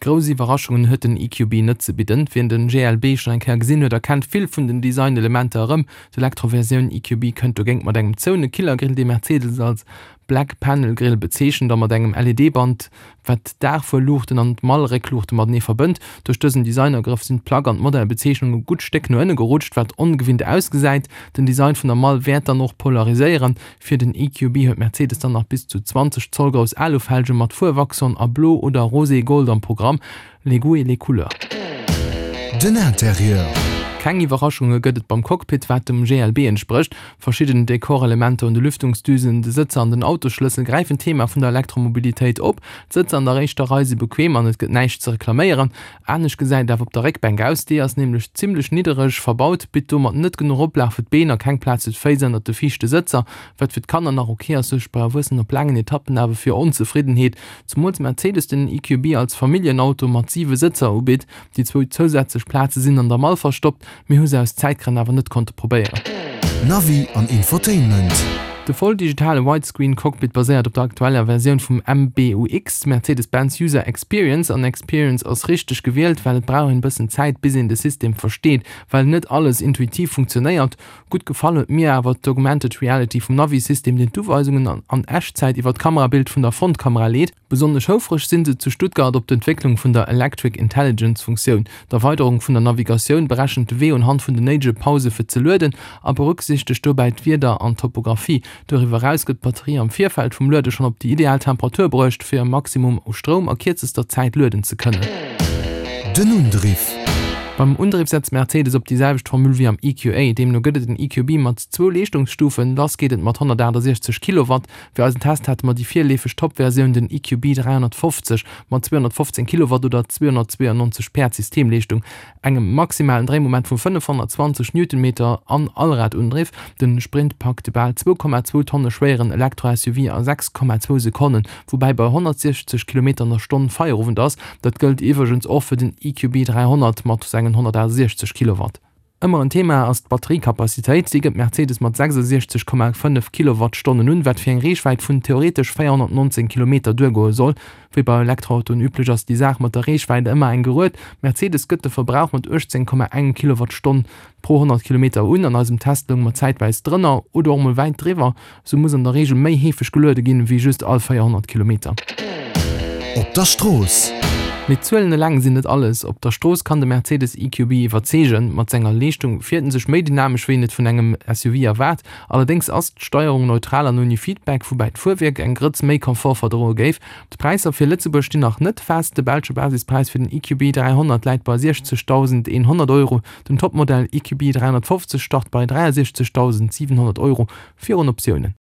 Grouss Iwwerraschungen huet den EQB net ze bidden. Wien den GLB schonn eng Kéier gesinn huet, erkennt vill vun den Designelementer erëm. D'Elektroversioun EQB kënnt dogéint mat engem zoune Killergrill, dee Mercedes als Black Panel Grill bezeechent, a mat engem LED-Band, wat d'Daachfuerluuchten an d'Mall-Réckluuchte matenee verbënnt. Duerch dësen Designagrëff sinn d'Plack an d'Modellbezeechnung e gutt Stéck no ënne gerutscht, wat ongewinnt ausgesäit. Den Design vun der Mall wäert dann och polariséieren. Fir den EQB huet Mercedes dann nach bis zu 20 Zoll grouss Alufelge mat Fuerwachson a Blo oder Rosé Gold am Programm, les goûts et les couleurs. Den Interieur. Keng Iwwerraschunge gëtt et beim Cockpit, wat dem GLB entsprécht. Verschidden Dekorelementer un de Lüftungsdüsen, de Sëtzer an den Autosschlëssel gräifen d'Thema vun der Elektromobilitéit op. D'Sëtzer an der éischter Rei si bequem an et gëtt näischt ze reklaméieren. Anescht gesäit et awer op der Réckbänk aus, déi ass nämlech zimmlech niddereg verbaut, bitt domat net genuch Oplag fir d'Been a keng Plaz fir d'Féiss ënnert de viischte Sëtzer. Wat fir d'Kanner nach ok ass, suergt bei Erwuessenen op laangen Etappen awer fir Onzefriddenheet, zemools Mercedes den EQB als Familljenauto mat 7 Sëtzer ubitt. Déi zwou zousätzlech Plaze sinn an der Mall verstoppt, mir hu se aus Zäitgrënn awer net konnte probéieren. Navi an Infotainment. De voll digitale Widescreen Cockpit baséiert op der aktueller Versioun vum MBUX, Mercedes-Benz User Experience, an Experience ass richteg gewielt, well et brauch een bëssen Zäit bis een de System versteet, well net alles intuitiv funktionéiert. Gutt gefall huet mir awer d'Augmented Reality vum Navi-System, deen d'Uweisungen an Echtzäit iwwer d'Kamerabild vun der Frontkamera leet. Besonnesch houfreg sinn se zu Stuttgart op d'Entwécklung vun der Electric Intelligence Funktioun. D'Erweiderung vun der Navigatioun berechent de Wee unhand vun den néidege Pause fir ze lueden a berücksichtegt dobäi d'Wieder an d'Topographie. Doriwwer eraus gëtt d'Batterie am Virfeld vum Luede schonn op déi ideal Temperatur bruecht, fir e Maximum u Stroum a kierzester Zäit lueden ze kënnen. Den Undriff. Beim Undriff setzt Mercedes op déi selwecht Formule wéi am EQA. Deemno gëtt et en EQB mat zwou Leeschtungsstufen. Lass geet et mat 168 Kilowatt. Fir eisen Test hate mer déi virleefeg Top-Versioun, den EQB 350 mat 215 Kilowatt oder 292 Päerd Systemleeschtung, engem maximalen Dréimoment vu 520 Newtonmeter an Allradundriff. Den Sprint packt de bal 2,2 Tonne schwéieren Elektro-SUV a 6,2 Sekonnen, woubäi bei 160 Kilometer an der Stonn Feierowend ass. Dat gëllt iwwregens och fir den EQB 300 mat sengen 168 Kilowatt. Ëmmer en Thema ass d'Batteriekapazitéit. Si gëtt Mercedes mat 66,5 Kilowattstonnen un, wat fir eng Reechwäit vun theoretesch 419 Kilometer duergoe soll. Wéi bei Elektroautoen üblech ass déi Saach mat der Reechwäit ëmmer eng Gerued. Mercedes gëtt de Verbrauch mat 18,1 Kilowattstonn pro 100 Kilometer un. An eisem Test lounge mer zäitweis drënner oder och mol wäit driwwer. Sou muss an der Reegel méi heefeg geluede ginn, wéi just all 400 Kilometer. Op der Strooss. Mee d'Zuelen eleng sinn net alles. Op der Strooss kann de Mercedes EQB iwwerzeegen. Mat senger Leeschtung fiert en sech méi dynamesch, wéi een et vun engem SUV erwaart. Allerdéngs ass d'Steierung neutral an ouni Feedback, woubäi d'Fuerwierk eng Grëtz méi Confort verdroe géif. D'Präisser fir Lëtzebuerg stinn nach net fest. De belsche Basispräis fir den EQB 300 läit bei 60.100 Euro. Den Topmodell EQB 350 start bei 63.700 Euro, virun Optiounen.